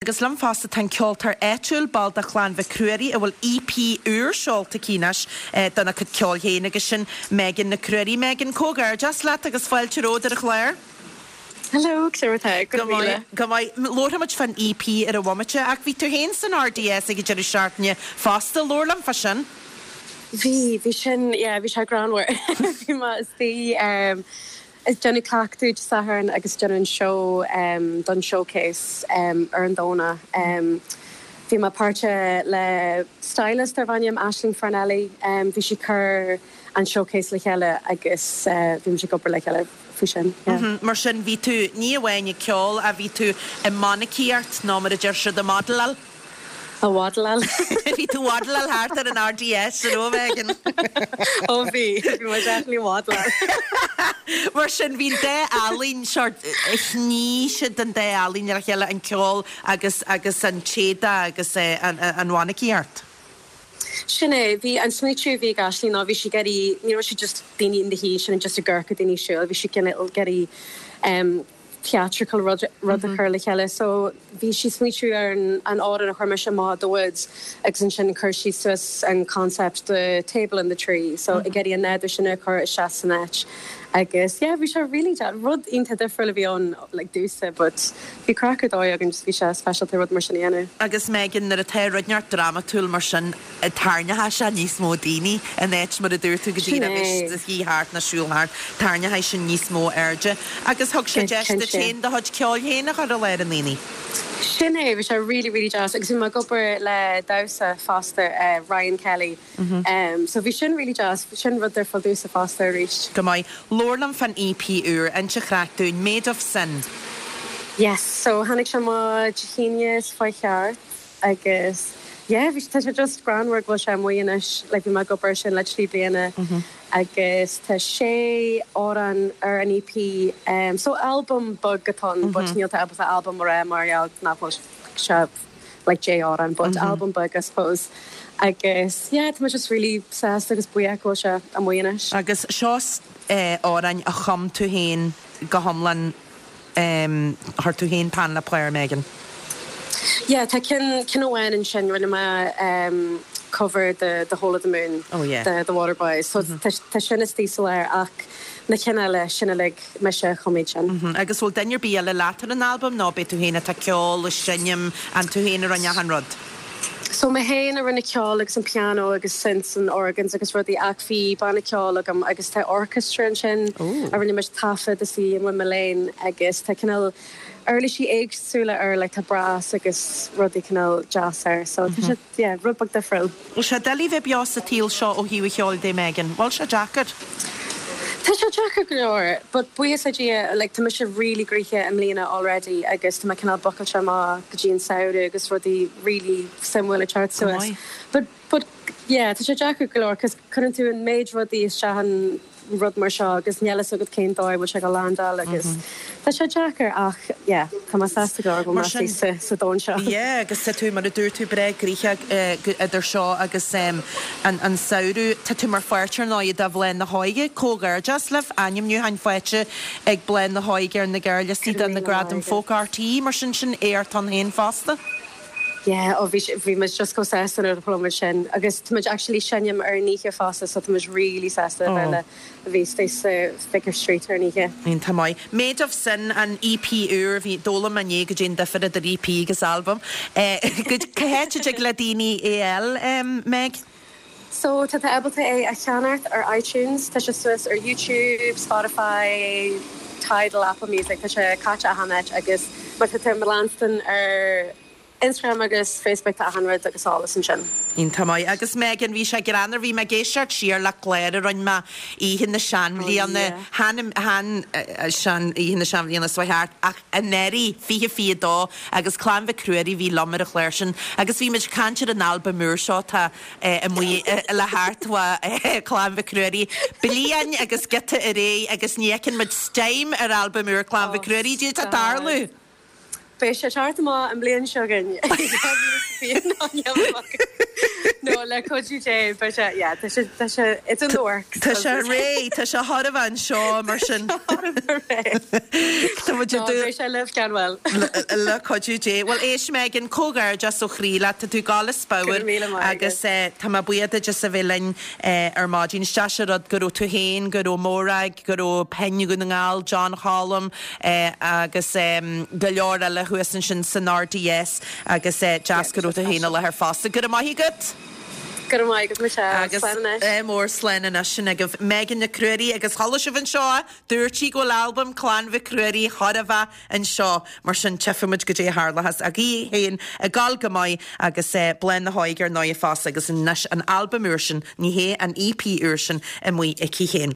Agus liom fosta tá an ceoltóir áitiúil, ball de Chlann Mhic Ruairí, a bhfuil EP úr seolta aici anois dona cuid ceoil féin agus sin Megan Nic Ruairí. Megan, comhghairdeas leat agus fáilte romhat ar an chlár. Hello, cad é mar atá? Go raibh míle. Go maith. Labharfaidh muid fán EP ar an bhomaite ach bhí tú féin san RDS ag an deireadh seachtaine fosta. Labhair liom fá sin. Bhí, bhí sin, yeah, bhí sé greannmhar. Bhí mé istigh, Ag déanamh cleachtadh Dé Sathairn agus déanamh an seó don showcase ar an Domhnach. Bhí mé páirteach le stylist darb ainm Aisling Farnelly. Bhí sí ag cur an showcase le chéile agus bhí muid ag obair le chéile faoi sin. Yeah. Mar sin bhí tú ní amháin ag ceol ach bhí tú i mainicíocht nó mar a deir siad ag modeláil. Ag waddleáil. Bhí tú ag waddleáil thart ar an RDS, an raibh, Megan? Ó bhí, bhí mé definitely ag waddleáil. Mar sin, bhí an dá ealaín, sort, shnoigh siad an dá ealaín le chéile, an ceol agus, agus an t-éadach agus an, an mhainicíocht. Sin é, bhí an smaoitiú a bhí ag Aisling ná bhí sí ag iarraidh, ní raibh sí just daoine ina shuí ansin just ag amharc ar daoine ag siúl, bhí sí cineál ag iarraidh theatrical rud a chur le chéile. So bhí sí ag smaoitiú ar an amhrán a chuir mise amach The Woods agus ansin chuir sí suas an concept the table and the tree. So ag iarraidh an nádúr sin a chur isteach san áit. Agus yeah bhí sé really deas, rud iontach difriúil a bhí ann like domhsa but bhí craic ar dóigh againn just bhí sé speisialta rud mar sin a dhéanamh. Agus Megan, nuair atá rud inteacht drámatúil mar sin, tarraingeoidh sé níos mó daoine in áit mar a dúirt tú go Sin díreach é. bheith shuí thart nó siúl thart, tarraingeoidh sin níos mó airde. Agus thug sé deis duit féin do chuid ceoil féin a chur i láthair na ndaoine. Sin é, bhí sé really really deas agus bhí mé ag obair le damhsa fosta, Ryan Kelly, so bhí sin really deas, sin rud difriúil domhsa fosta arís. Go maith. Labhair liom fán EP úr, inis an chraic dúinn, Made of Sin. Yes, so tháinig sé amach Dé hAoine is fá cheart. Agus yeah bhí tá sé just greannmhar go bhfuil sé amuigh anois like bhí mé ag obair ar sin le 3 bliana agus tá sé amhrán ar an EP so albam beag atá ann but níl tú ábalta albam a rá mar gheall nach bhfuil sé like 10 amhrán but albam beag I suppose agus yeah tá mé just really sásta agus buíoch go bhfuil sé amuigh anois. Agus seo amhráin a chum tú féin go hiomlán Chuir tú féin peann le pár, Megan. Yeah, tá ceann, ceann amháin ansin, rinne mé cover de The Whole of the Moon Oh yeah. de The Waterboys, so tá, tá sin istigh sa lár ach na cinn eile, sin uilig mise a chum iad sin. Agus bhfuil duine ar bith eile leat ar an albam nó ab é tú féin atá ag ceol, ag seinm, an tú féin a rinne achan rud? So mé féin a rinne ceol agus an piano agus synths and organs agus rudaí ach bhí banna ceoil agam agus tá orchestra ansin a rinne muid taifead istigh i Mullane agus tá cineál uirlisí éagsúla air like tá brass agus rudaí cineál deas air so tá sé yeah rud beag difriúil. Bhfuil sé doiligh bheith beo sa tsaol seo ó thaobh an cheoil de Megan? Bhfuil sé deacair? Tá sé deacair go leor but buíochas le Dia like tá mise really gnoitheach i mbliana already agus tá mé cineál bookáilte amach go dtí an samhradh agus rudaí really suimiúil ag teacht suas. But but yeah tá sé deacair go leor cos cuireann tú an méid rudaí isteach in rud mar seo agus níl fhios agat cén dóigh a bhfuil sé ag landáil agus tá sé deacair ach yeah tá mé sásta go leor go bhfuil mé sa sa domhan seo. Yeah agus tá tú mar a dúirt tú breá gnoitheach idir seo agus an an samhradh. Tá tú mar pháirt ar ndóigh de Bhláth na hÓige. Comhghairdeas libh, ainmniúcháin faighte ag Bláth na hÓige ar na gearrliostaí do na Gradaim Folk RTÉ mar sin sin éacht ann féin fosta. Yeah, oh bhí bhí muid just chomh sásta nuair a chuala muid sin agus tá muid actually seinm ar an oíche fosta so tá muid really sásta a bheith le a bheith istigh sa Vicar Street ar an oíche. Iontach maith. Made of Sin, an EP úr, bhí, d'fhoghlaim mé inné goidé an difear idir EP agus albam. Cá háit a dtig le daoine é a fháil, Meg? So tá tú ábalta é a cheannacht ar iTunes, tá sé suas ar YouTube, Spotify, Tidal, Apple Music, tá sé caite achan áit agus má tá tú i mo leanstan ar Instagram agus Facebook tá achan rud agus eolas ansin. Iontach maith. Agus Megan, bhí sé greannmhar, bhí mé ag éisteacht siar le clár a rinne mé oíche na seanbhliana, chan, chan, sean, oíche na seanbhliana seo thart ach anuraidh, 2022 agus Clann Mhic Ruairí a bhí liom ar an chlár sin agus bhí muid ag caint ar an albam úr seo atá amuigh le theacht ó Chlann Mhic Ruairí. Bliain agus giota ar aghaidh agus ní fheiceann muid steam ar albam úr Clann Mhic Ruairí. Cad é atá ag tarlú? Beidh sé ag teacht amach an bhliain seo chugainn, 2020. No, le cuidiú Dé, beidh sé, yeah, tá sé, tá sé, it's in the works. Tá sé réidh, tá sé chóir a bheith anseo mar sin. Tá sé chóir a bheith réidh. Tá muid ag No, beidh sé libh gan mhoill. Le cuidiú Dé. Bhuel, éist Megan, comhghairdeas ó chroí leat, tá tú ag gabháil as Go pabhar raibh míle maith agat. agus tá mé buíoch duit as a bheith linn ar maidin. Is deas an rud go raibh tú féin, go raibh Morag, go raibh Pinn Dhún na nGall, John Cholm, agus go leor eile thuas ansin san RDS agus deas go raibh tú féin i láthair fosta. Go raibh maith agat! Go raibh maith agat Michelle. Agus Slán anois. ádh mór slán anois sin agaibh Megan Nic Ruairí agus chuala sibh anseo é, dúirt sí go bhfuil albam Clann Mhic Ruairí chóir a bheith anseo mar sin tchífidh muid goidé a tharlóchas ach í féin ag gabháil go maith agus Bláth na hÓige ar ndóigh fosta agus anois an albam úr sin, ní hé an EP úr sin amuigh aici féin.